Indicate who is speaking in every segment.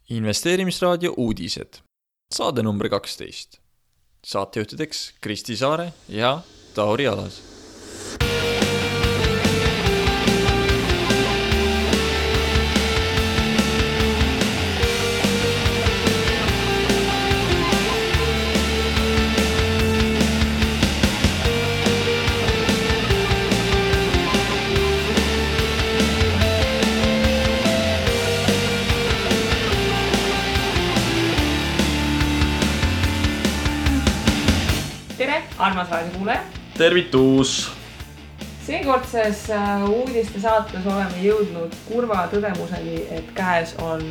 Speaker 1: Investeerimisraadio uudised. Saade number 12. Saatejuhtideks Kristi Saare ja Tauri Alas.
Speaker 2: Armas raadiokuulaja.
Speaker 1: Tervitus!
Speaker 2: Seekordses uudiste saates oleme jõudnud kurva tõdemuseni, et käes on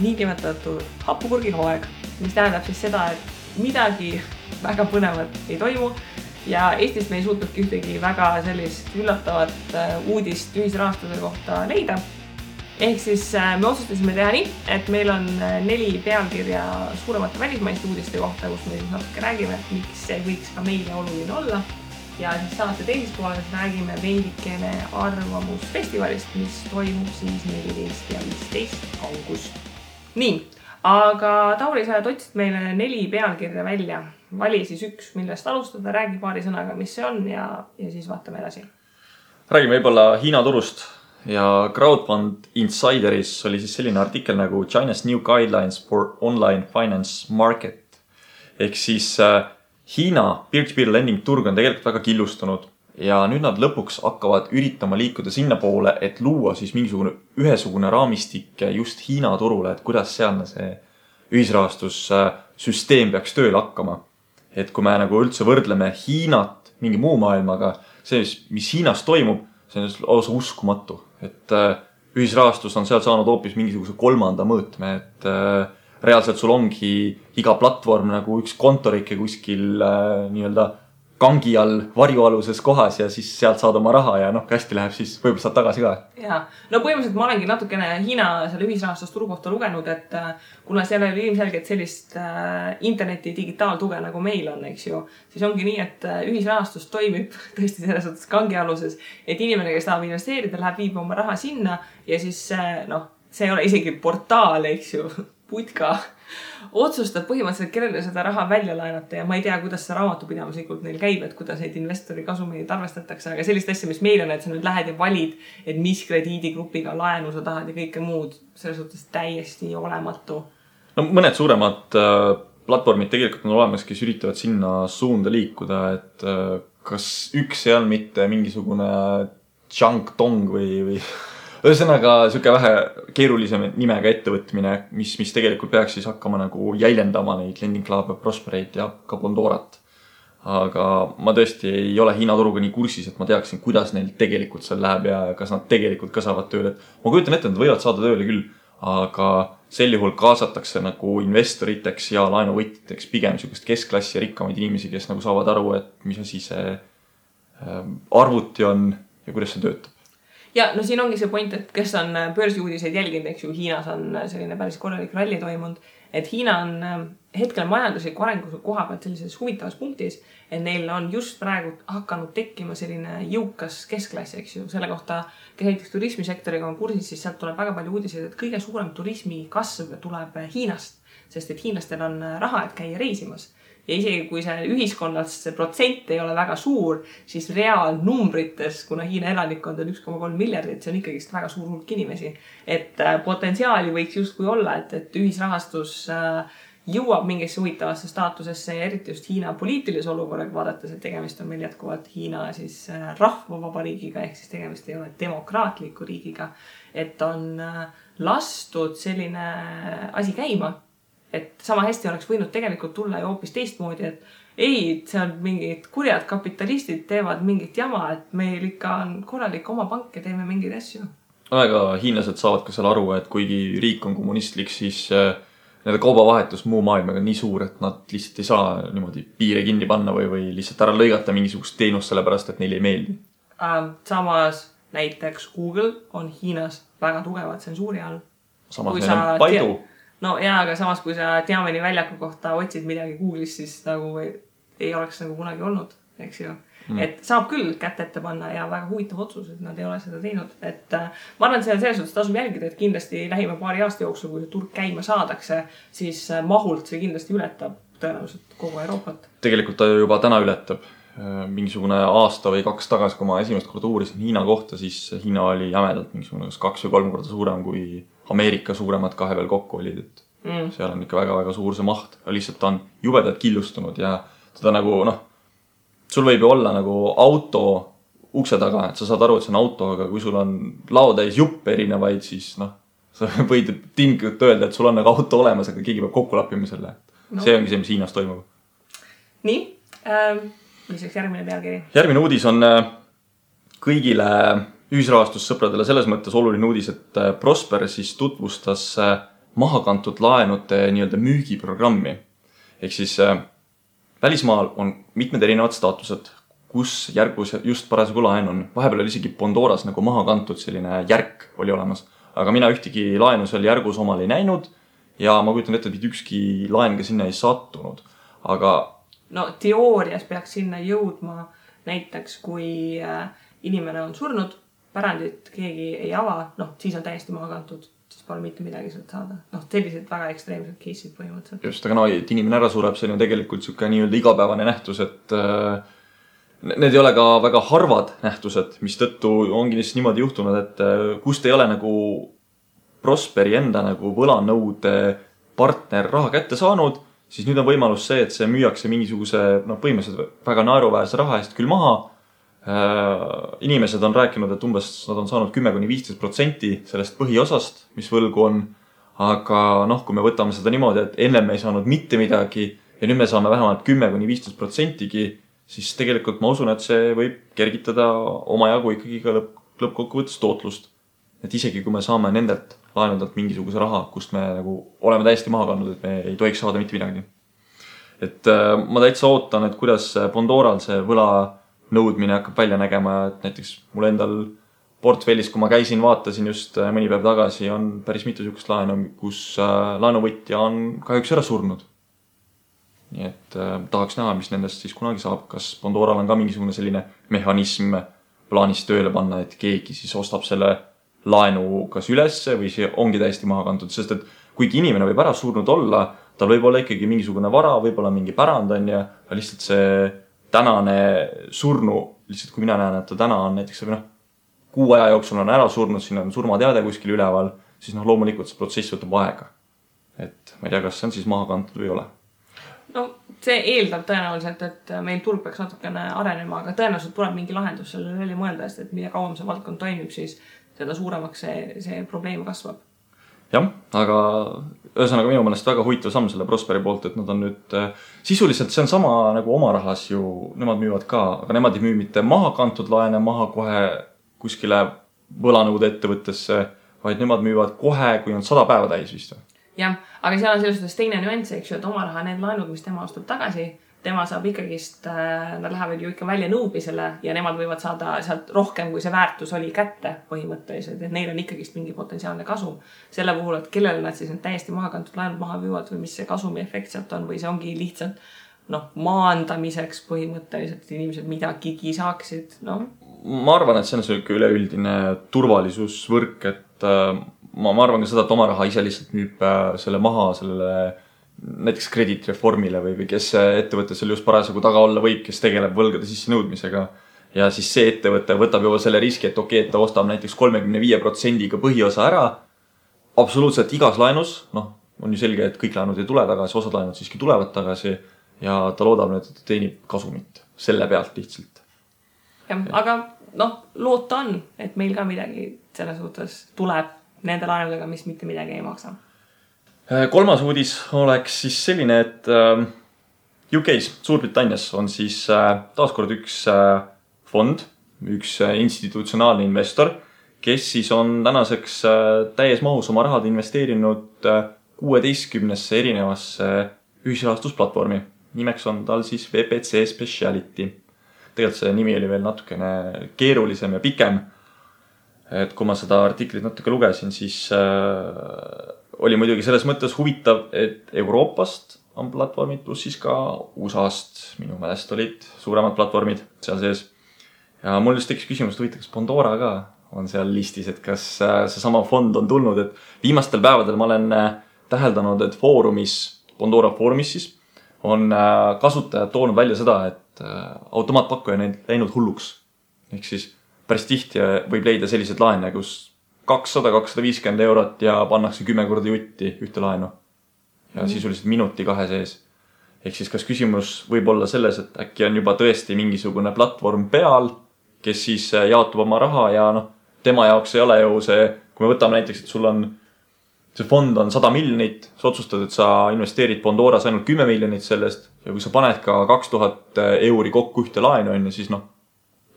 Speaker 2: niinimetatud hapupurgi hooaeg, mis tähendab siis seda, et midagi väga põnevat ei toimu ja Eestist me ei suutnudki ühtegi väga sellist üllatavat uudist ühisrahastuse kohta leida. Ehk siis me otsustasime teha nii, et meil on 4 pealkirja suuremate välismaiste uudiste kohta, kus me siis natuke räägime, miks see võiks ka meile oluline olla. Ja siis saate teises pooles räägime veidikene arvamusfestivalist, mis toimub siis 14 ja 15 august. Nii, aga Tauri, sa otsid meile 4 pealkirja välja. Vali siis üks, millest alustada, räägi paari sõnaga, mis see on ja siis vaatame edasi.
Speaker 1: Räägime võib-olla Hiina turust. Ja Crowdfund Insideris oli siis selline artikkel nagu China's New Guidelines for Online Finance Market. Ehk siis Hiina peer-to-peer lending turg on tegelikult väga killustunud ja nüüd nad lõpuks hakkavad üritama liikuda sinna poole, et luua siis mingisugune ühesugune raamistik just Hiina turule, et kuidas sealne see ühisrahastussüsteem peaks tööle hakkama. Et kui me nagu üldse võrdleme Hiinat mingi muu maailmaga, see, mis Hiinas toimub, see on lausa uskumatu. Et ühisrahastus on seal saanud hoopis mingisuguse 3. mõõtme, et reaalselt sul ongi iga platvorm nagu üks kontorike kuskil nii-öelda kangi all varjualuses kohas ja siis sealt saad oma raha ja hästi läheb, siis võib-olla saad tagasi ka.
Speaker 2: Ja, no põhimõtteliselt ma olengi natukene Hiina selle ühisrahastusturu kohta lugenud, et kuna seal oli ilmselgelt sellist interneti digitaaltuge nagu meil on, eks ju, siis ongi nii, et ühisrahastus toimib tõesti selles suhtes kangialuses, et inimene, kes tahab investeerida, läheb viib oma raha sinna ja siis see ei ole isegi portaal, eks ju, putka otsustab põhimõtteliselt, kellele seda raha välja laenata ja ma ei tea, kuidas see raamatupidamislikult neil käib, et kuidas neid investori kasumeid arvestatakse, aga sellist asja, mis meil on, et sa nüüd lähed ja valid, et mis krediidigrupiga laenu sa tahad ja kõike muud, selles suhtes täiesti olematu.
Speaker 1: No mõned suuremad platvormid tegelikult on olemas, kes üritavad sinna suunda liikuda, et kas üks ei ole mitte mingisugune Changtong või ühesõnaga süke vähe keerulisem nimega ettevõtmine, mis tegelikult peaks siis hakkama nagu jäljendama neid Lending Club, Prosperate ja ka Bondorat. Aga ma tõesti ei ole Hiina turuga nii kursis, et ma teaksin, kuidas neil tegelikult seal läheb ja kas nad tegelikult ka saavad tööle. Ma kujutan ette, nad võivad saada tööle küll, aga sel juhul kaasatakse nagu investoriteks ja laenuvõtjateks pigem niisugust keskklassi ja rikkamaid inimesi, kes nagu saavad aru, et mis asi see arvuti on ja kuidas see töötab.
Speaker 2: Ja no siin ongi see point, et kes on börsiuudiseid jälginud, eks ju, Hiinas on selline päris korralik ralli toimunud, et Hiina on hetkel majandusliku arengu koha pealt sellises huvitavas punktis, et neil on just praegu hakanud tekkima selline jõukas keskklass, eks ju, selle kohta, kes näiteks turismisektoriga on kursis, siis sealt tuleb väga palju uudiseid, et kõige suurem turismi kasv tuleb Hiinast, sest et hiinlastel on raha, et käia reisimas. Ja isegi kui see ühiskonnas see protsent ei ole väga suur, siis reaalnumbrites, kuna Hiina elanikkond on 1,3 miljardit, see on ikkagi väga suur hulk inimesi. Et potentsiaali võiks justkui olla, et ühisrahastus jõuab mingisse huvitavasse staatusesse ja eriti just Hiina poliitilise olukorraga vaadates, et tegemist on meil jätkuvalt Hiina siis rahvavabariigiga, ehk siis tegemist ei ole demokraatliku riigiga, et on lastud selline asi käima. Et sama hästi oleks võinud tegelikult tulla ju hoopis teistmoodi, et ei, see on mingid kurjad kapitalistid teevad mingit jama, et meil ikka on korralik oma pank ja teeme mingeid asju.
Speaker 1: Aga hiinlased saavad ka seal aru, et kuigi riik on kommunistlik, siis nende kaubavahetus muu maailmaga on nii suur, et nad lihtsalt ei saa niimoodi piire kinni panna või lihtsalt ära lõigata mingisugust teenust sellepärast, et neile ei meeldi.
Speaker 2: Samas näiteks Google on Hiinas väga tugevad tsensuuri all.
Speaker 1: Samas neil on Baidu.
Speaker 2: No jaa, aga samas kui sa Tiameni väljaku kohta otsid midagi Google'is, siis nagu ei oleks nagu kunagi olnud. eks ju. Et saab küll kätt ette panna ja väga huvitav otsus, et nad ei ole seda teinud. Et ma arvan, et selles suhtes tasub jälgida, et kindlasti lähima paari aasta jooksul, kui see turg käima saadakse, siis mahult see kindlasti ületab tõenäoliselt kogu Euroopat.
Speaker 1: Tegelikult ta juba täna ületab. Mingisugune aasta või 2 tagasi, kui ma esimest korda uurisin Hiina kohta, siis Hiina oli jämedalt mingisugune 2 või 3 korda suurem kui Ameerika suuremad 2 veel kokku olid. Et seal on ikka väga-väga suur see maht. Lihtsalt ta on jubedalt killustunud ja teda nagu, sul võib ju olla nagu auto ukse taga, et sa saad aru, et see on auto, aga kui sul on laotäis juppe erinevaid, siis sa võid tinglikult öelda, et sul on nagu auto olemas, aga keegi peab kokku lappima selle. See ongi see, mis Hiinas toimub.
Speaker 2: Nii, mis oleks järgmine pealkiri?
Speaker 1: Järgmine uudis on kõigile ühisrahastussõpradele selles mõttes oluline uudis, et Prosper siis tutvustas mahakantud laenude nii-öelda müügiprogrammi. Ehk siis välismaal on mitmed erinevad staatused, kus järgus just parasjagu laen on. Vahepeal oli isegi Pandoras nagu maha kantud selline järk oli olemas. Aga mina ühtegi laenu seal järgus omal ei näinud ja ma kujutan ette, et ükski laen ka sinna ei sattunud. Aga
Speaker 2: teoorias peaks sinna jõudma näiteks, kui inimene on surnud, pärandit keegi ei ava, siis on täiesti maha kantud. Siis pole mitte midagi sealt saada. Sellised väga ekstreemsed case'id põhimõtteliselt.
Speaker 1: Just, aga et inimene ära sureb, see on ju tegelikult siuke nii-öelda igapäevane nähtus, et need ei ole ka väga harvad nähtused, mis tõttu ongi lihtsalt niimoodi juhtunud, et kust ei ole nagu Prosperi enda nagu võlanõude partner raha kätte saanud, siis nüüd on võimalus see, et see müüakse mingisuguse põhimõtteliselt väga naeruväärse raha eest küll maha. Inimesed on rääkinud, et umbes nad on saanud 10–15% sellest põhiosast, mis võlgu on. Aga kui me võtame seda niimoodi, et enne me ei saanud mitte midagi ja nüüd me saame vähemalt 10–15%, siis tegelikult ma usun, et see võib kergitada omajagu ikkagi ka lõppkokkuvõttes tootlust. Et isegi kui me saame nendelt laenudelt mingisuguse raha, kust me nagu oleme täiesti maha kandnud, et me ei tohiks saada mitte midagi. Et ma täitsa ootan, et kuidas Pandoral see võla nõudmine hakkab välja nägema, et näiteks mul endal portfellis, kui ma käisin, vaatasin just mõni päev tagasi, on päris mitu sihukest laenu, kus laenuvõtja on kahjuks ära surnud. Nii et tahaks näha, mis nendest siis kunagi saab. Kas Pandoral on ka mingisugune selline mehhanism plaanis tööle panna, et keegi siis ostab selle laenu kas ülesse või see ongi täiesti maha kantud, sest et kuigi inimene võib ära surnud olla, tal võib olla ikkagi mingisugune vara, võib olla mingi pärand on ja lihtsalt see tänane surnu, lihtsalt kui mina näen, et ta täna on näiteks kuu aja jooksul on ära surnud, siin on surmateade kuskil üleval, siis loomulikult see protsess võtab aega. Et ma ei tea, kas see on siis maha kantud või ei ole.
Speaker 2: See eeldab tõenäoliselt, et meil turg peaks natukene arenema, aga tõenäoliselt tuleb mingi lahendus sellele välja mõelda, et mida kauem see valdkond toimib, siis seda suuremaks see probleem kasvab.
Speaker 1: Jah, aga ühesõnaga minu mõelest väga huvitav samm selle Prosperi poolt, et nad on nüüd sisuliselt see on sama nagu oma rahas ju, nemad müüvad ka, aga nemad ei müü mitte maha kantud laene maha kohe kuskile võlanõude ettevõttesse, vaid nemad müüvad kohe, kui on 100 päeva täis vist.
Speaker 2: Jah, aga seal on selles suhtes teine nüanss, eks ju, et oma raha need laenud, mis tema ostab tagasi, tema saab ikkagist, nad lähevad ju ikka välja nõudmisele ja nemad võivad saada sealt rohkem, kui see väärtus oli kätte põhimõtteliselt, et neil on ikkagist mingi potentsiaalne kasum. Selle puhul, et kellele nad siis need täiesti maha kantud laenud maha müüvad või mis see kasumi efekt sealt on või see ongi lihtsalt maandamiseks põhimõtteliselt, et inimesed midagigi saaksid.
Speaker 1: Ma arvan, et see on selline üleüldine turvalisusvõrk, et ma arvan ka seda, et oma raha ise lihtsalt müüb selle maha sellele näiteks krediitreformile või kes ettevõte seal just parasjagu taga olla võib, kes tegeleb võlgade sisse nõudmisega. Ja siis see ettevõte võtab juba selle riski, et okei, et ta ostab näiteks 35% põhiosa ära. Absoluutselt igas laenus, on ju selge, et kõik laenud ei tule tagasi, osad laenud siiski tulevad tagasi ja ta loodab nüüd, et ta teenib kasumit selle pealt lihtsalt.
Speaker 2: Ja, aga loota on, et meil ka midagi selles suhtes tuleb nende laenudega, mis mitte midagi ei maksa.
Speaker 1: Kolmas uudis oleks siis selline, et UK's, Suurbritannias on siis taaskord üks fond, üks institutsionaalne investor, kes siis on tänaseks täies mahus oma rahad investeerinud 16 erinevasse ühisrahastusplatvormi. Nimeks on tal siis VPC Speciality. Tegelikult see nimi oli veel natukene keerulisem ja pikem. Et kui ma seda artiklit natuke lugesin, siis oli muidugi selles mõttes huvitav, et Euroopast on platvormid, pluss siis ka USA-st minu meelest olid suuremad platvormid seal sees. Ja mul just tekkis küsimus, et huvitav, kas Pandora ka on seal listis, et kas seesama fond on tulnud, et viimastel päevadel ma olen täheldanud, et Pandora foorumis siis on kasutajad toonud välja seda, et automaatpakkuja on läinud hulluks. Ehk siis päris tihti võib leida sellised laene, kus 200-250 eurot ja pannakse 10 korda jutti ühte laenu. Ja sisuliselt minuti 2 sees. Ehk siis kas küsimus võib olla selles, et äkki on juba tõesti mingisugune platvorm peal, kes siis jaotub oma raha ja tema jaoks ei ole ju see, kui me võtame näiteks, et sul on, see fond on 100 miljonit, sa otsustad, et sa investeerid Pandoras ainult 10 miljonit sellest ja kui sa paned ka 2000 euri kokku ühte laenu, siis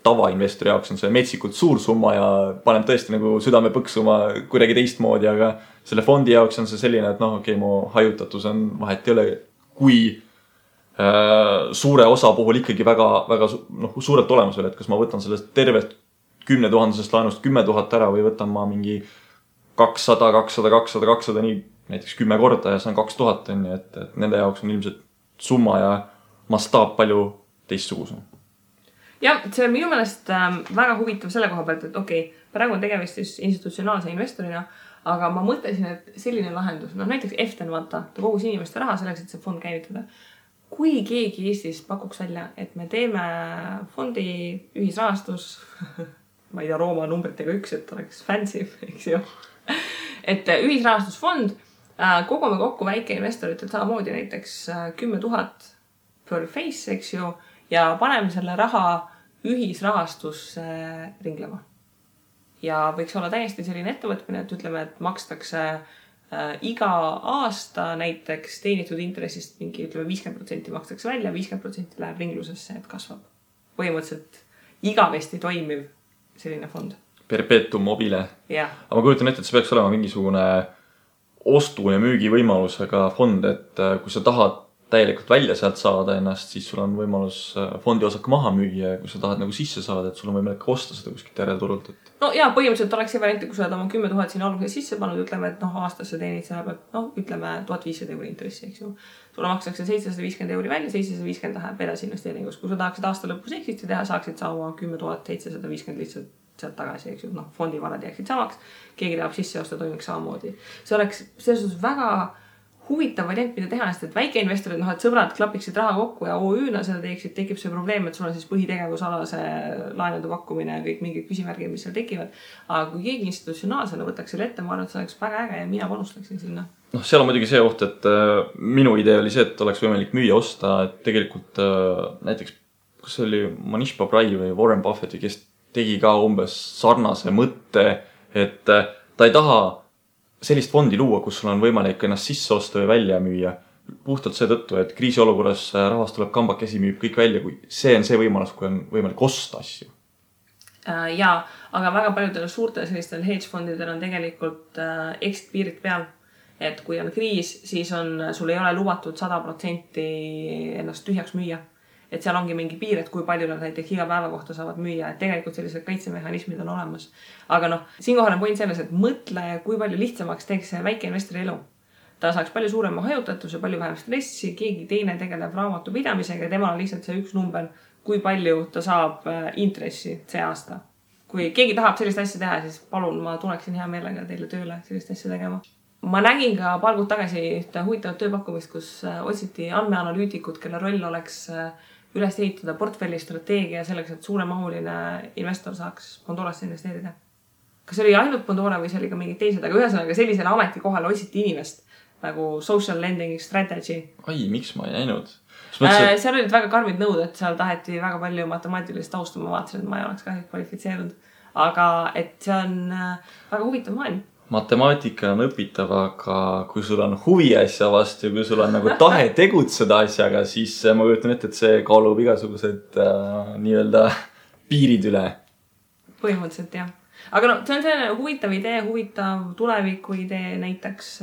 Speaker 1: tavainvestori jaoks on see metsikult suur summa ja paneb tõesti nagu südame põksuma kuidagi teistmoodi, aga selle fondi jaoks on see selline, et okei, mu hajutatus on vahet ei ole, kui suure osa puhul ikkagi väga suurelt olemusel, et kas ma võtan sellest tervest 10 000 laenust 10 000 ära või võtan ma mingi 200, 200, 200, 200, nii näiteks 10 korda ja see on 2000, et nende jaoks on ilmselt summa ja mastaap palju teistsugusem.
Speaker 2: Ja, see on minu meelest väga huvitav selle koha pealt, et okei, praegu on tegemist siis institutsionaalse investorina, aga ma mõtlesin, et selline lahendus, näiteks Eften vaata, ta kogus inimeste raha selleks, et see fond käivitada. Kui keegi Eestis pakuks välja, et me teeme fondi ühisrahastus, ma ei tea, Rooma numbritega 1, et oleks fancy, eks ju, et ühisrahastusfond, kogume kokku väikeinvestoritel samamoodi näiteks 10 000 per face, eks ju, ja paneme selle raha ühisrahastusse ringlema. Ja võiks olla täiesti selline ettevõtmine, et ütleme, et makstakse iga aasta näiteks teenitud intressist mingi 50% makstakse välja, 50% läheb ringlusesse, et kasvab. Põhimõtteliselt igavesti toimiv selline fond.
Speaker 1: Perpetuum mobile.
Speaker 2: Ja.
Speaker 1: Aga ma kujutan ette, et see peaks olema mingisugune ostu- ja müügivõimalusega fond, et kui sa tahad täielikult välja sealt saada ennast, siis sul on võimalus fondi osak maha müüa ja kui sa tahad nagu sisse saada, et sul on võimalik osta seda kuskilt järelturult.
Speaker 2: No ja põhimõtteliselt oleks see variant, kui sa oled oma 10 000 siin alguses sisse pannud, ütleme, et aastasse teenid selle pealt, ütleme 1500 euri intressi, eks ju. Sulle makstakse 750 euri välja, 750 läheb edasi investeeringus. Kui sa tahaksid aasta lõpus exit'i teha, saaksid sa oma 10 750 lihtsalt sealt tagasi, eks ju. Fondi varad jääksid samaks, keegi tahab sisse osta, toimiks samamoodi. See oleks selles väga huvitav variant, mida teha, sest et väikeinvestorid, et sõbrad klapiksid raha kokku ja OÜ-na seda teeksid, tekib see probleem, et sul on siis põhitegevusalase laenude pakkumine ja kõik mingid küsimärgid, mis seal tekivad. Aga kui keegi institutsionaalsena võtaks selle ette, ma arvan, et see oleks väga äge ja mina panustaksin sinna.
Speaker 1: Seal on muidugi see oht, et minu idee oli see, et oleks võimalik müüa osta, et tegelikult näiteks, kas see oli Manish Babrai või Warren Buffett, kes tegi ka umbes sarnase mõtte, et ta ei taha sellist fondi luua, kus sul on võimalik ennast sisse osta või välja müüa. Puhtalt seetõttu, et kriisiolukorras rahvas tuleb kambakesi, müüb kõik välja, kui see on see võimalus, kui on võimalik osta asju.
Speaker 2: Jaa, aga väga paljudel suurtel sellistel hedge-fondidel on tegelikult exit piirid peal. Et kui on kriis, siis sul ei ole lubatud 100% ennast tühjaks müüa. Et seal ongi mingi piir, et kui palju nad näiteks iga päeva kohta saavad müüa, et tegelikult sellised kaitsemehhanismid on olemas. Aga siinkohal on point selles, et mõtle, kui palju lihtsamaks teeks see väikeinvestori elu. Ta saaks palju suurema hajutatuse, palju vähem stressi, keegi teine tegeleb raamatu pidamisega ja temal on lihtsalt see üks number, kui palju ta saab intressi see aasta. Kui keegi tahab sellist asja teha, siis palun, ma tuleksin hea meelega teile tööle sellist asja tegema. Ma nägin ka paar kuud tagasi ühte huvitavat tööpakkumist, kus otsiti andmeanalüütikud, kelle roll oleks üles ehitada portfelli strateegia selleks, et suuremahuline investor saaks Pandorasse investeerida. Kas see oli ainult Pandora või see oli ka mingid teised, aga ühesõnaga sellisele ametikohale otsiti inimest nagu social lending strategy.
Speaker 1: Ai, miks ma ei näinud?
Speaker 2: Seal olid väga karmid nõud, et seal taheti väga palju matemaatilist taustu, ma vaatasin, et ma ei oleks ka kvalifitseerunud. Aga et see on väga huvitav maailm.
Speaker 1: Matemaatika on õpitav, aga kui sul on huvi asja vastu ja kui sul on nagu tahe tegutseda asjaga, siis ma kujutan ette, et see kaalub igasugused nii-öelda piirid üle.
Speaker 2: Põhimõtteliselt, jah. Aga see on selline huvitav idee, huvitav tuleviku idee näiteks,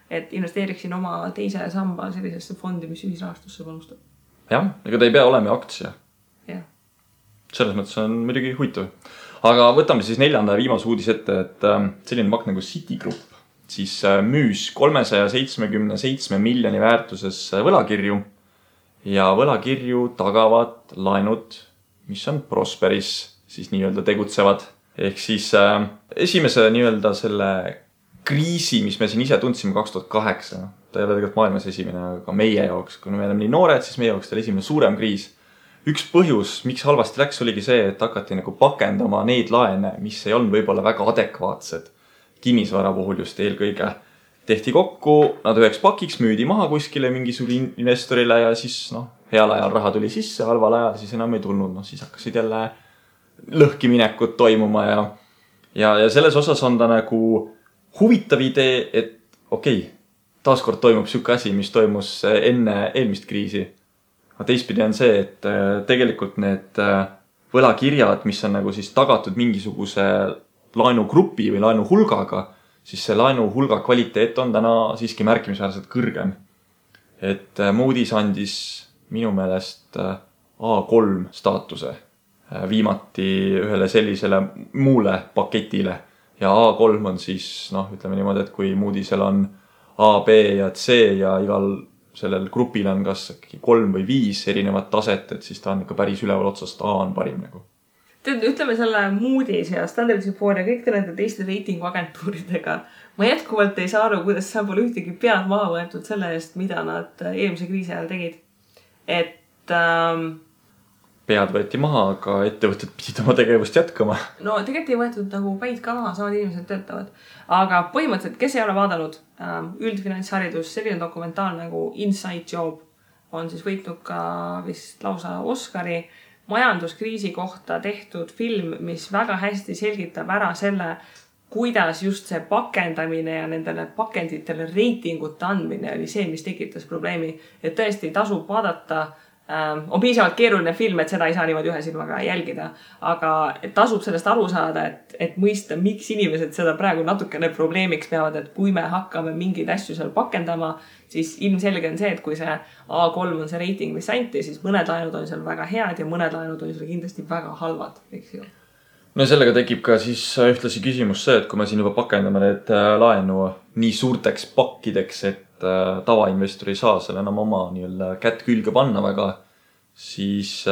Speaker 2: et investeeriksin oma teise samba sellisesse fondi, mis ühisrahastusse panustab.
Speaker 1: Jah, ega ta ei pea olema aktsia.
Speaker 2: Jah.
Speaker 1: Selles mõttes on muidugi huvitav. Aga võtame siis 4. ja viimase uudis ette, et selline pank nagu Citigroup siis müüs 377 miljoni väärtuses võlakirju ja võlakirju tagavad laenud, mis on Prosperis siis nii-öelda tegutsevad. Ehk siis esimese nii-öelda selle kriisi, mis me siin ise tundsime 2008, ta ei ole tegelikult maailmas esimene, aga meie jaoks, kui me oleme nii noored, siis meie jaoks ta oli esimene suurem kriis. Üks põhjus, miks halvasti läks, oligi see, et hakati nagu pakendama neid laene, mis ei olnud võib-olla väga adekvaatsed. Kinnisvara puhul just eelkõige tehti kokku, nad üheks pakiks müüdi maha kuskile mingisugune investorile ja siis heal ajal raha tuli sisse, halval ajal siis enam ei tulnud. Siis hakkasid jälle lõhkiminekud toimuma ja selles osas on ta nagu huvitav idee, et okei, taaskord toimub siuke asi, mis toimus enne eelmist kriisi. Aga teistpidi on see, et tegelikult need võlakirjad, mis on nagu siis tagatud mingisuguse laenugrupi või laenuhulgaga, siis see laenuhulga kvaliteet on täna siiski märkimisväärselt kõrgem. Et Moody's andis minu meelest A3 staatuse viimati ühele sellisele muule paketile. Ja A3 on siis, ütleme niimoodi, et kui Moody'sel on A, B ja C ja igal sellel grupil on kas 3 või 5 erinevat taset, et siis ta on ikka päris üleval otsast A on parim nagu.
Speaker 2: Ütleme selle Moody's ja Standard & Poor's ja kõik nende teiste reitinguagentuuridega. Ma jätkuvalt ei saa aru, kuidas seal pole ühtegi pead maha võetud selle eest, mida nad eelmise kriisi ajal tegid. Et
Speaker 1: pead võeti maha, aga ettevõtted pidid oma tegevust jätkama.
Speaker 2: No tegelikult ei võetud nagu päid ka maha, samad inimesed töötavad. Aga põhimõtteliselt, kes ei ole vaadanud üldfinantsharidus, selline dokumentaal nagu Inside Job on siis võitnud ka vist lausa Oscari majanduskriisi kohta tehtud film, mis väga hästi selgitab ära selle, kuidas just see pakendamine ja nendele pakenditele reitingute andmine oli see, mis tekitas probleemi. Et tõesti tasub vaadata, on piisavalt keeruline film, et seda ei saa niimoodi ühe silmaga jälgida, aga tasub sellest aru saada, et mõista, miks inimesed seda praegu natukene probleemiks peavad, et kui me hakkame mingeid asju seal pakendama, siis ilmselge on see, et kui see A3 on see reiting, mis anti, siis mõned laenud on seal väga head ja mõned laenud on seal kindlasti väga halvad, eks ju.
Speaker 1: No sellega tekib ka siis ühtlasi küsimus see, et kui me siin juba pakendame need laenu nii suurteks pakkideks, et tavainvestor ei saa selle enam oma kätt külge panna väga, siis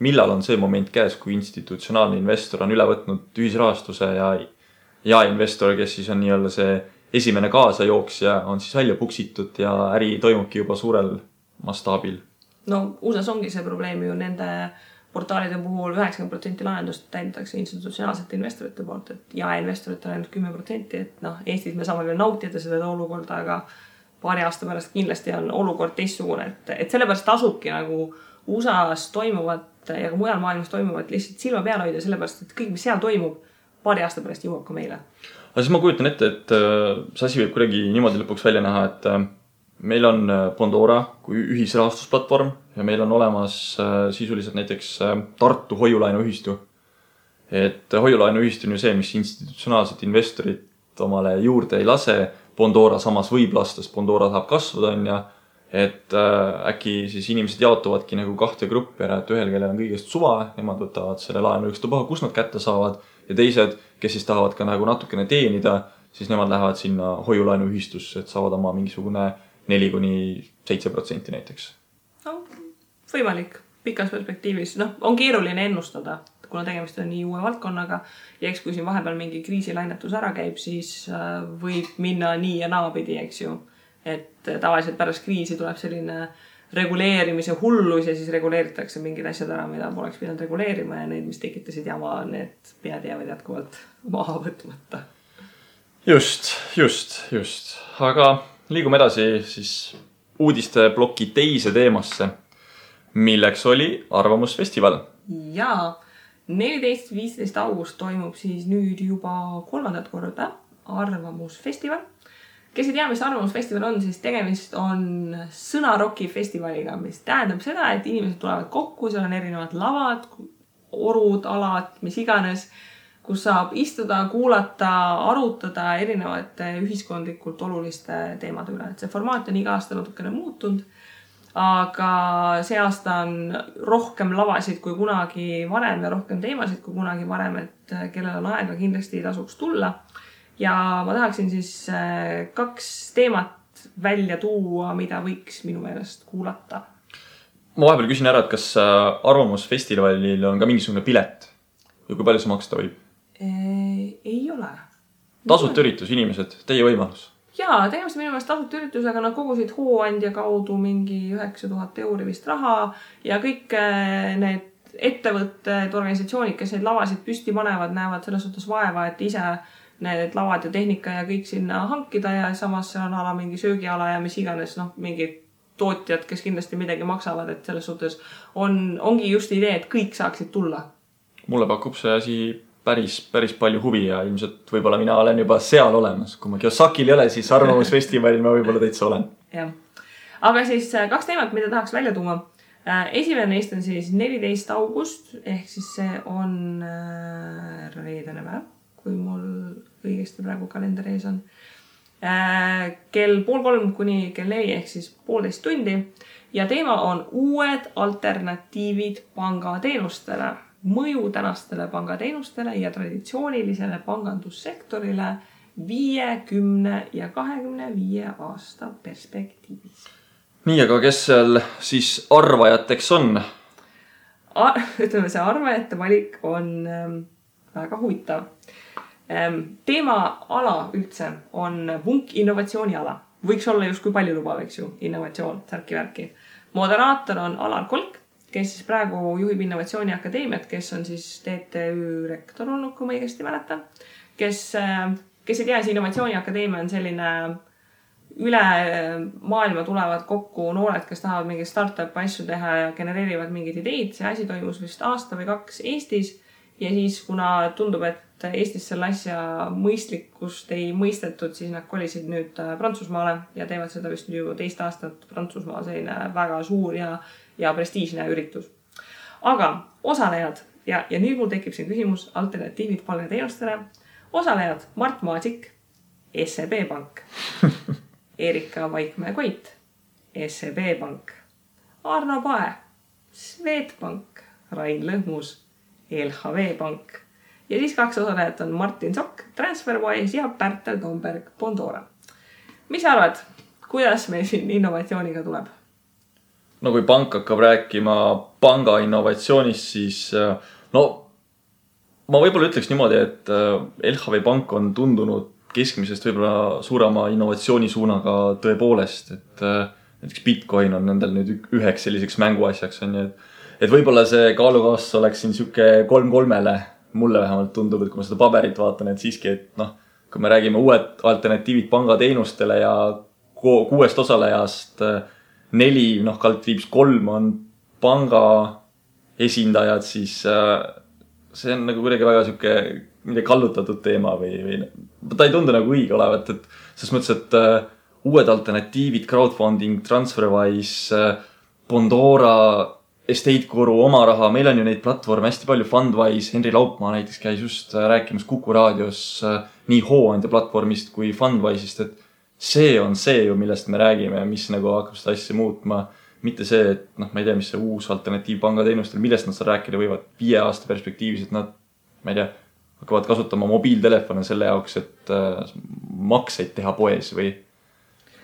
Speaker 1: millal on see moment käes, kui institutsionaalne investor on üle võtnud ühisrahastuse ja investor, kes siis on see esimene kaasajooksja, on siis välja puksitud ja äri toimubki juba suurel mastaabil.
Speaker 2: No USA-s ongi see probleem ju nende portaalide puhul 90% lahendust täidetakse institutsionaalsete investorite poolt, et investorite on ainult 10%, et Eestis me saame veel nautida seda olukorda, aga paari aasta pärast kindlasti on olukord teistsugune, et sellepärast tasubki nagu USA-s toimuvat ja ka mujal maailmas toimuvat lihtsalt silma peal hoida, sellepärast, et kõik, mis seal toimub, paari aasta pärast jõuab ka meile.
Speaker 1: Aga siis ma kujutan ette, et see asi võib kuidagi niimoodi lõpuks välja näha, et meil on Bondora kui ühisrahastusplatvorm ja meil on olemas sisuliselt näiteks Tartu hoiulaenuühistu. Et hoiulaenuühistu on ju see, mis institutsionaalset investorit omale juurde ei lase. Bondora samas võib lasta, sest Bondora saab kasvada on ja et äkki siis inimesed jaotuvadki nagu kahte gruppi ära, et ühel, kellel on kõigest suva, nemad võtavad selle laenu ükstapuha, kus nad kätte saavad ja teised, kes siis tahavad ka nagu natukene teenida, siis nemad lähevad sinna hoiulaenuühistusse, et saavad oma mingisugune 4-7% näiteks.
Speaker 2: No, võimalik pikas perspektiivis. On keeruline ennustada, kuna tegemist on nii uue valdkonnaga ja eks kui siin vahepeal mingi kriisilainetus ära käib, siis võib minna nii ja naapidi, eks ju. Et tavaliselt pärast kriisi tuleb selline reguleerimise hullus ja siis reguleeritakse mingid asjad ära, mida poleks pidanud reguleerima ja need, mis tekitasid jama, need pead jäävad jätkuvalt maha võtmata. Just. Aga liigume edasi siis uudisteploki teise teemasse, milleks oli Arvamusfestival. Jaa, 14-15 august toimub siis nüüd juba 3. korda Arvamusfestival. Kes ei tea, mis Arvamusfestival on, siis tegemist on sõnaroki festivaliga, mis tähendab seda, et inimesed tulevad kokku, seal on erinevad lavad, orud, alad, mis iganes, kus saab istuda, kuulata, arutada erinevate ühiskondlikult oluliste teemade üle. Et see formaat on iga aasta natukene muutunud, aga see aasta on rohkem lavasid kui kunagi varem ja rohkem teemasid kui kunagi varem, et kellel on aega kindlasti tasuks tulla. ja ma tahaksin siis 2 teemat välja tuua, mida võiks minu meelest kuulata.
Speaker 1: Ma vahepeal küsin ära, et kas Arvamusfestivalil on ka mingisugune pilet ja kui palju see maksta võib?
Speaker 2: Ei ole.
Speaker 1: Tasuta üritus, inimesed, teie võimalus.
Speaker 2: Jaa, tegemist minu meelest tasuta üritusega, nad kogusid hooandja kaudu mingi 9000 € vist raha ja kõik need ettevõtted, organisatsioonid, kes neid lavasid püsti panevad, näevad selles suhtes vaeva, et ise need lavad ja tehnika ja kõik sinna hankida ja samas seal on ala mingi söögiala ja mis iganes, mingid tootjad, kes kindlasti midagi maksavad, et selles suhtes ongi just idee, et kõik saaksid tulla. Mulle
Speaker 1: pakub see asi päris palju huvi ja ilmselt võib-olla mina olen juba seal olemas. Kui ma Kiyosakil ei ole, siis Arvamusfestivalil ma võib-olla täitsa olen.
Speaker 2: Jah. Aga siis 2 teemat, mida tahaks välja tuua. Esimene neist on siis 14. august, ehk siis see on reedene päev, kui mul õigesti praegu kalender ees on. Kell 2:30 kuni kell 4 ehk siis 1,5 tundi ja teema on uued alternatiivid pangateenustele, mõju tänastele pangateenustele ja traditsioonilisele pangandussektorile 5, 10 ja 25 aasta perspektiivis.
Speaker 1: Nii, aga kes seal siis arvajateks on?
Speaker 2: Ütleme, see arvajate valik on väga huvitav. Teema ala üldse on vunk innovatsiooniala. Võiks olla just kui palju lubav, eks ju, innovatsioon, särki-värki. Moderaator on Alar Kolk, kes siis praegu juhib Innovatsiooniakadeemiat, kes on siis TTÜ rektor olnud, kui ma õigesti mäletan. Kes ei tea, see Innovatsiooniakadeemia on selline üle maailma tulevad kokku noored, kes tahavad mingeid startup asju teha ja genereerivad mingid ideid. See asi toimus vist 1 või 2 aastat Eestis ja siis, kuna tundub, et Eestis selle asja mõistlikkust ei mõistetud, siis nad kolisid nüüd Prantsusmaale ja teevad seda vist ju 2 aastat Prantsusmaal, selline väga suur ja prestiižne üritus. Aga osalejad, ja nüüd mul tekib siin küsimus alternatiivid pangateenustele. Osalejad Mart Maasik, SEB Pank, Erika Vaikmäe-Koit, SEB Pank, Arno Pae, Swedbank, Rain Lõhmus, LHV Pank. Ja siis 2 osalejat on Martin Sokk, TransferWise ja Pärtel Tomberg, Bondora. Mis arvad, kuidas meil siin innovatsiooniga tuleb?
Speaker 1: No kui pank hakkab rääkima panga innovatsioonist, siis ma võib-olla ütleks niimoodi, et LHV Pank on tundunud keskmisest võib-olla suurema innovatsioonisuunaga tõepoolest, et näiteks Bitcoin on nendel nüüd üheks selliseks mänguasjaks, et võib-olla see kaalukaas oleks siin siuke 3-3-le. Mulle vähemalt tundub, et kui ma seda paberit vaatan, et siiski, et kui me räägime uued alternatiivid pangateenustele ja 6 osalejast 4, kaldkriips 3 on panga esindajad, siis see on nagu kuidagi väga siuke midagi kallutatud teema või ta ei tundu nagu õige olevat, et selles mõttes, et uued alternatiivid, crowdfunding, TransferWise, Bondora, Estate-Guru, oma raha, meil on ju neid platvorme hästi palju, Fundwise, Henri Laupmaa näiteks käis just rääkimas Kuku raadios nii hooandja platvormist kui Fundwise'ist, et see on see ju, millest me räägime, mis nagu hakkab seda asja muutma, mitte see, et ma ei tea, mis see uus alternatiiv pangateenustel, millest nad seal rääkida võivad 5 aasta perspektiivis, et nad, ma ei tea, hakkavad kasutama mobiiltelefone selle jaoks, et makseid teha poes või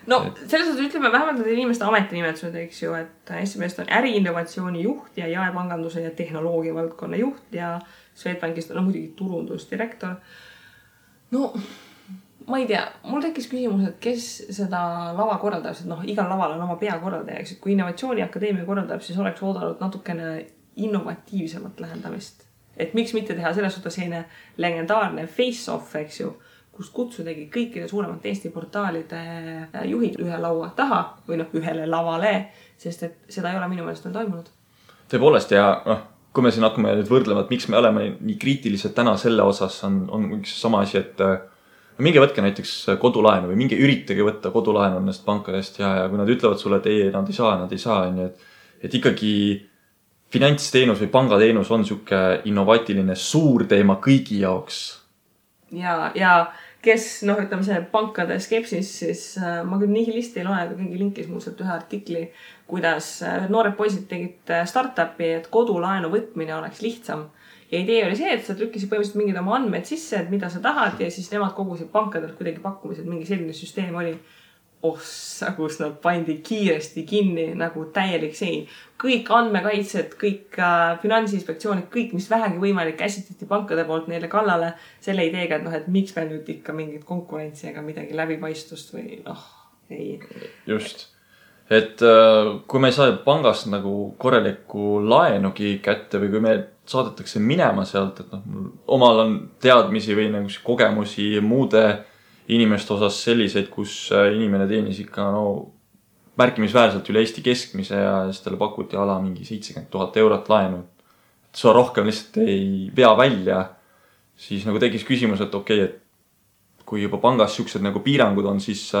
Speaker 2: selles suhtes ütleme vähemalt need inimeste ametinimetused, eks ju, et esimest on äriinnovatsiooni juht ja jaepanganduse ja tehnoloogia valdkonna juht ja Swedbankist on muidugi turundusdirektor. Ma ei tea, mul tekkis küsimus, et kes seda lava korraldab, et igal laval on oma peakorraldaja, eks, et kui Innovatsiooniakadeemia korraldab, siis oleks oodanud natukene innovatiivsemat lähendamist. Et miks mitte teha selles suhtes selline legendaarne face-off, eks ju, kust kutsudagi kõikide suuremate Eesti portaalide juhid ühe laua taha või ühele lavale, sest et seda ei ole minu meelest veel toimunud.
Speaker 1: Tõepoolest ja kui me siin hakkame nüüd võrdlema, et miks me oleme nii kriitilised täna selle osas, on üks sama asi, et minge võtke näiteks kodulaenu või minge üritage võtta kodulaenu nendest pankadest ja kui nad ütlevad sulle, et ei, nad ei saa, et ikkagi finantsteenus või pangateenus on siuke innovaatiline suur teema kõigi jaoks.
Speaker 2: Ja kes, ütleme see pankade skepsis, siis ma küll nihilisti ei loe, aga keegi linkis muuselt ühe artikli, kuidas noored poisid tegid startupi, et kodulaenu võtmine oleks lihtsam. Ja idee oli see, et sa trükkisid põhimõtteliselt mingid oma andmed sisse, et mida sa tahad ja siis nemad kogusid pankadelt kuidagi pakkumised, mingi selline süsteem oli. Ossa, kus nad pandi kiiresti kinni nagu täielik sein. Kõik andmekaitsed, kõik finantsinspektsioonid, kõik, mis vähegi võimalik käsitati pankade poolt neile kallale selle ideega, et miks me nüüd ikka mingit konkurentsi ega midagi läbipaistvust või ei.
Speaker 1: Just. Et kui me ei saa pangast nagu korralikku laenugi kätte või kui me saadetakse minema sealt, et omal on teadmisi või nagu kogemusi muude inimeste osas selliseid, kus inimene teenis ikka märkimisväärselt üle Eesti keskmise ja siis talle pakuti ala mingi 70 000 eurot laenu. Et sa rohkem lihtsalt ei vea välja, siis nagu tekkis küsimus, et okei, et kui juba pangas siuksed nagu piirangud on, siis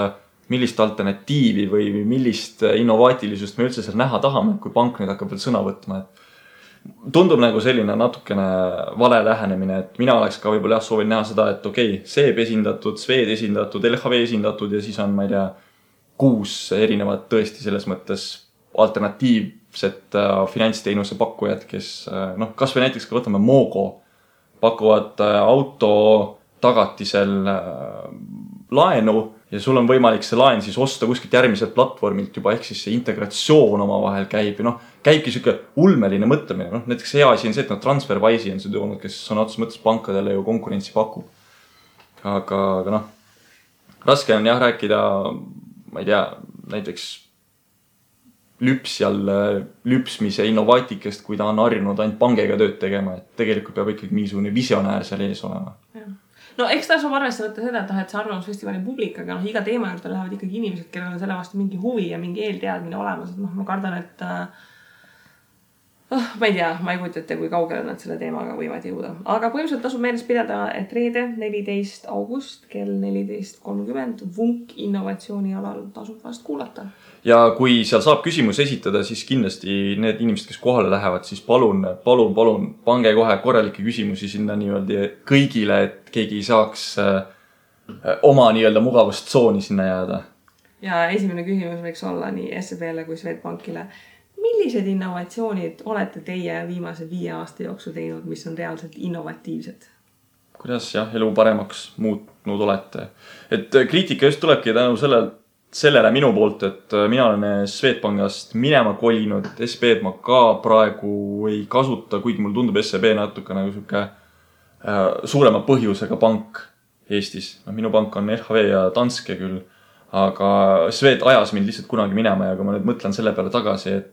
Speaker 1: millist alternatiivi või millist innovaatilisust me üldse seal näha tahame, kui pank nüüd hakkab veel sõna võtma. Et tundub nagu selline natukene vale lähenemine, et mina oleks ka võib-olla soovin näha seda, et okei, SEB esindatud, Swed esindatud, LHV esindatud ja siis on, ma ei tea, 6 erinevat tõesti selles mõttes alternatiivset finantsteenuse pakkujad, kes kas või näiteks ka võtame Mogo, pakuvad auto tagatisel laenu ja sul on võimalik see laen siis osta kuskilt järgmiselt platvormilt juba, ehk siis see integratsioon oma vahel käib ja käibki siuke ulmeline mõtlemine. Näiteks hea asi on see, et TransferWise'i on see toonud, kes on otseses mõttes pankadele ju konkurentsi pakub. Aga raske on jah rääkida, ma ei tea, näiteks lüpsmise innovaatikest, kui ta on harjunud ainult pangega tööd tegema, et tegelikult peab ikkagi mingisugune visionäär seal ees olema.
Speaker 2: No eks ta saab arvestada seda, et see arvamusfestivali publik, aga iga teema juurde lähevad ikkagi inimesed, kellel on selle vastu mingi huvi ja mingi eelteadmine olemas. Et ma kardan, et ma ei tea, ma ei kujuta ette, kui kaugele nad selle teemaga võivad jõuda. Aga põhimõtteliselt tasub meeles pidada, et reede 14. august kell 14.30 Vunk innovatsioonialal tasub vast kuulata.
Speaker 1: Ja kui seal saab küsimus esitada, siis kindlasti need inimesed, kes kohale lähevad, siis palun, pange kohe korralikke küsimusi sinna nii-öelda kõigile, et keegi saaks oma nii-öelda mugavustsooni sinna jääda.
Speaker 2: Ja esimene küsimus võiks olla nii SEB-le kui Swedbankile. Millised innovatsioonid olete teie viimase 5 aasta jooksul teinud, mis on reaalselt innovatiivsed?
Speaker 1: Kuidas elu paremaks muutnud olete? Et kriitika just tulebki tänu sellele minu poolt, et mina olen Swedbankast minema kolinud, SEB ma ka praegu ei kasuta, kuigi mul tundub SEB natuke nagu siuke suurema põhjusega pank Eestis. Minu pank on LHV ja Danske küll, aga Swed ajas mind lihtsalt kunagi minema ja kui ma nüüd mõtlen selle peale tagasi, et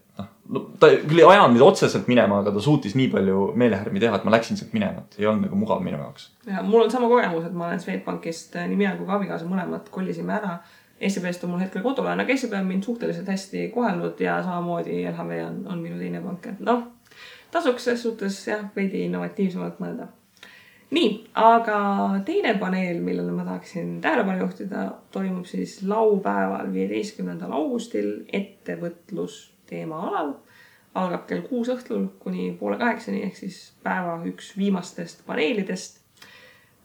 Speaker 1: ta küll ei ajanud mind otseselt minema, aga ta suutis nii palju meelehärmi teha, et ma läksin sealt minema, et ei olnud nagu mugav minu jaoks.
Speaker 2: Ja mul on sama kogemus, et ma olen Swedbankist nii mina kui ka abikaasa mõlemad kollisime ära. SEB-st on mul hetkel kodulaen, aga SEB on mind suhteliselt hästi kohelnud ja samamoodi LHV on minu teine pank. Tasuks selles suhtes veidi innovatiivsemalt mõelda. Nii, aga teine paneel, millele ma tahaksin tähelepanu juhtida, toimub siis laupäeval 15. augustil ettevõtlus teema alal. Algab kell 6 õhtul kuni 7:30 ehk siis päeva üks viimastest paneelidest.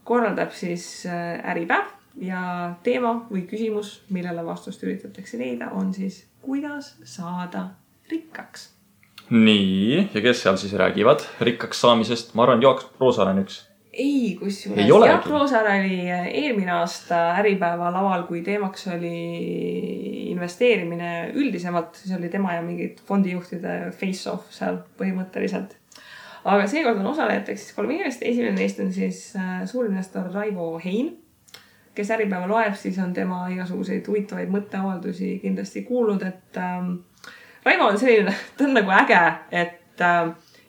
Speaker 2: Korraldab siis Äripäev ja teema või küsimus, millele vastust üritatakse leida, on siis kuidas saada rikkaks.
Speaker 1: Nii, ja kes seal siis räägivad rikkaks saamisest? Ma arvan, Jaak Roosaar on üks.
Speaker 2: Ei, kusjuures Jaak Roosaar oli eelmine aasta Äripäeva laval, kui teemaks oli investeerimine üldisemalt. See oli tema ja mingid fondijuhtide face-off seal põhimõtteliselt. Aga seekord on osalejateks siis 3 inimest. Esimene neist on siis suurinvestor Raivo Hein, kes Äripäeva loeb, siis on tema igasuguseid huvitavaid mõtteavaldusi kindlasti kuulnud, et Raivo on selline, ta on nagu äge, et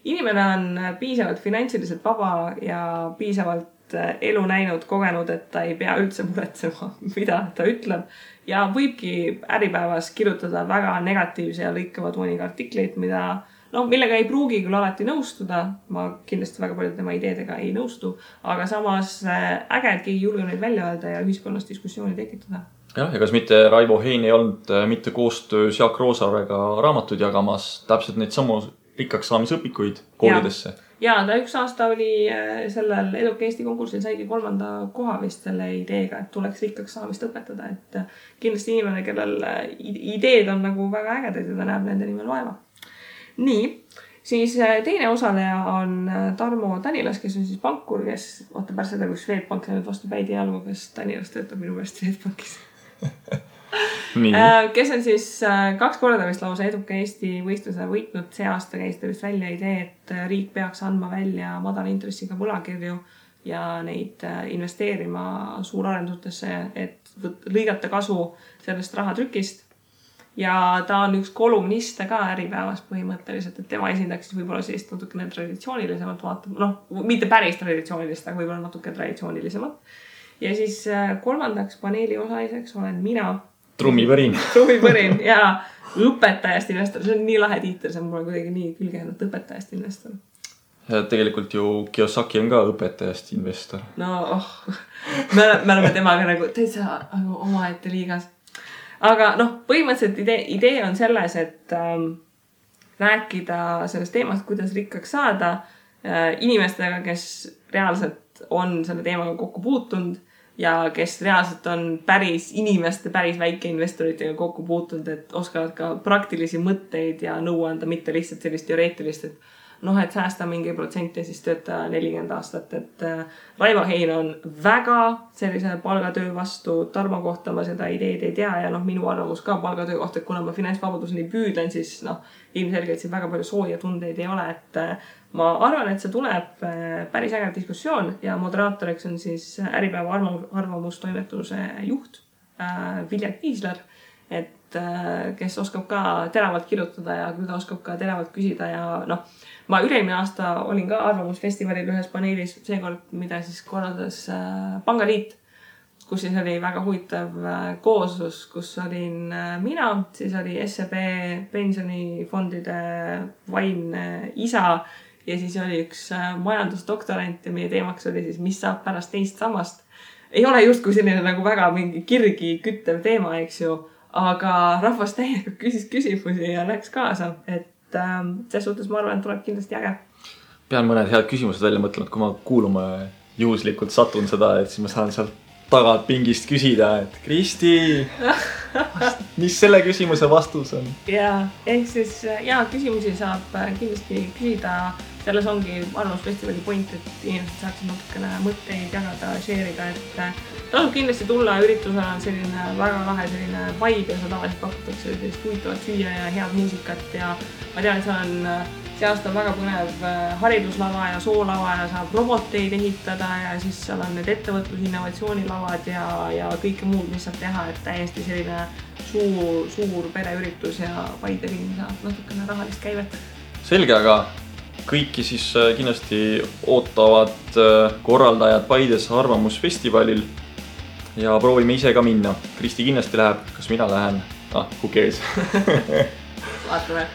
Speaker 2: inimene on piisavalt finantsiliselt vaba ja piisavalt elu näinud, kogenud, et ta ei pea üldse muretsema, mida ta ütleb. Ja võibki Äripäevas kirjutada väga negatiivse ja lõikava tooniga artikleid, millega ei pruugi küll alati nõustuda. Ma kindlasti väga palju tema ideedega ei nõustu, aga samas äge, et keegi julge neid välja öelda ja ühiskonnas diskussiooni tekitada.
Speaker 1: Ja kas mitte Raivo Hein ei olnud mitte koostöös Jaak Roosaarega raamatud jagamas täpselt neid samu rikkaks saamisõpikuid koolidesse? Ja
Speaker 2: ta 1 aasta oli sellel Eduka Eesti konkursil saigi 3. koha vist selle ideega, et tuleks rikkaks saamist õpetada. Et kindlasti inimene, kellel ideed on nagu väga ägedad ja ta näeb nende nimel vaeva. Nii, Siis teine osaleja on Tarmo Tanilas, kes on siis pankur, kes vaata pärast seda, kui Swedbank läinud vastu päid ja algu, kes Tanilas töötab minu meelest Swedbankis. Kes on siis 2 korda vist lausa eduka Eesti võistluse võitnud. See aasta käis ta vist välja idee, et riik peaks andma välja madala intressiga võlakirju ja neid investeerima suurarendustesse, et lõigata kasu sellest rahatrükist. Ja ta on üks kolumniste ka Äripäevas põhimõtteliselt, et tema esindaks võib-olla sellist natukene traditsioonilisemat vaatab, mitte päris traditsioonilist, aga võib-olla natuke traditsioonilisemat. Ja siis kolmandaks paneeli osaliseks olen mina. Trummipõrin ja õpetajast investor. See on nii lahe tiitel, see on mulle kuidagi nii külgenud õpetajast investor.
Speaker 1: Ja tegelikult ju Kiyosaki on ka õpetajast investor.
Speaker 2: No, me oleme temaga nagu täitsa omaette liigas. Aga põhimõtteliselt idee on selles, et rääkida sellest teemast, kuidas rikkaks saada inimestega, kes reaalselt on selle teemaga kokku puutunud ja kes reaalselt on päris väikeinvestoritega kokku puutunud, et oskavad ka praktilisi mõtteid ja nõu anda, mitte lihtsalt sellist teoreetilist, et et säästa mingi protsent ja siis tööta 40 aastat, et Raivo Hein on väga sellise palgatöö vastu. Tarmo kohta ma seda ideed ei tea ja minu arvamus ka palgatöö kohta, et kuna ma finantsvabaduseni püüdlen, siis ilmselgelt siin väga palju sooja tundeid ei ole, et ma arvan, et see tuleb päris äge diskussioon ja moderaatoriks on siis Äripäeva arvamustoimetuse juht Vilja Kiisler, et kes oskab ka teravalt kirjutada ja küll ta oskab ka teravalt küsida ja ma üle-eelmine aasta olin ka arvamusfestivalil ühes paneelis, seekord, mida siis korraldas Pangaliit, kus siis oli väga huvitav kooslus, kus olin mina, siis oli SEB pensionifondide vaimne isa ja siis oli üks majandusdoktorant ja meie teemaks oli siis, mis saab pärast teist sammast. Ei ole justkui selline nagu väga mingi kirgi küttev teema, eks ju, aga rahvas täiega küsis küsimusi ja läks kaasa, et selles suhtes ma arvan, et tuleb kindlasti äge.
Speaker 1: Pean mõned head küsimused välja mõtlenud, kui ma kuuluma juhuslikult satun seda, et siis ma saan sealt tagant pingist küsida, et Kristi, mis selle küsimuse vastus on?
Speaker 2: Ja, ehk siis küsimusi saab kindlasti küsida. Selles ongi arvamusfestivali point, et inimesed saaksid natukene mõtteid jagada, share'ida, et tasub kindlasti tulla. Üritusel on selline väga lahe selline vibe ja seda tavaliselt pakutakse sellist huvitavat süüa ja head muusikat ja ma tean, et see aasta on väga põnev hariduslava ja soolava ja saab roboteid ehitada ja siis seal on need ettevõtlus-innovatsioonilavad ja kõike muud, mis saab teha, et täiesti selline suur pereüritus ja Paide linn saab natukene rahalist käivet.
Speaker 1: Selge, aga kõiki siis kindlasti ootavad korraldajad Paides arvamusfestivalil ja proovime ise ka minna. Kristi kindlasti läheb, kas mina lähen? Who cares?
Speaker 2: Vaatame.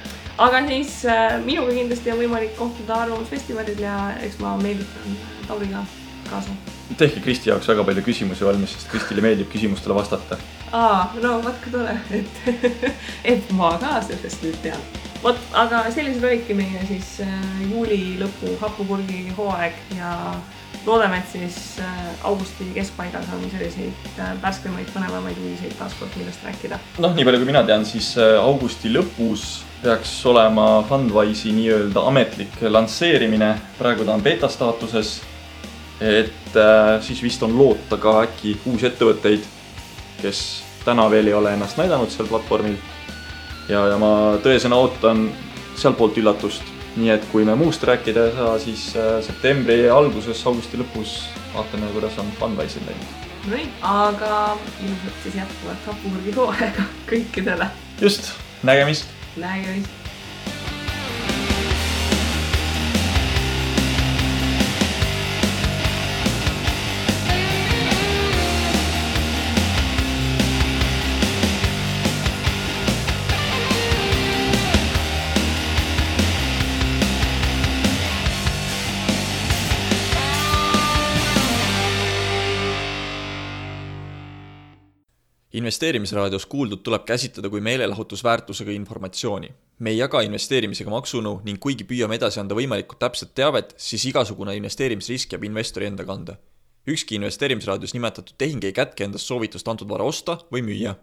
Speaker 2: Aga siis minuga kindlasti on võimalik kohtuda arvamusfestivalil ja eks ma meelditan Tauriga kaasa.
Speaker 1: Tehke Kristi jaoks väga palju küsimusi valmis, sest Kristile meeldib küsimustele vastata.
Speaker 2: Vatka tore, et ma ka sellest nüüd tean. Aga sellised olidki meie siis juuli lõpu hapupurgi hooaeg ja loodame, et siis augusti keskpaigas on selliseid värskemaid, põnevamaid uudiseid taaskord, millest rääkida. Nii
Speaker 1: palju kui mina tean, siis augusti lõpus peaks olema Fundwise'i nii-öelda ametlik lansseerimine. Praegu ta on beta staatuses, et siis vist on loota ka äkki uusi ettevõtteid, kes täna veel ei ole ennast näidanud seal platvormil. Ja ma tõesena ootan seal poolt üllatust. Nii et kui me muust rääkida ei saa, siis septembri alguses, augusti lõpus vaatame, kuidas on Fundwise'il läinud. Aga ilmselt siis jätkuvat hapupurgi hooaega kõikidele. Just, nägemist! Nägemist!
Speaker 3: Investeerimisraadios kuuldud tuleb käsitleda kui meelelahutusväärtusega informatsiooni. Me ei jaga investeerimisega maksunõu ning kuigi püüame edasi anda võimalikult täpset teavet, siis igasugune investeerimisrisk jääb investori enda kanda. Ükski investeerimisraadios nimetatud tehing ei kätke endast soovitust antud vara osta või müüa.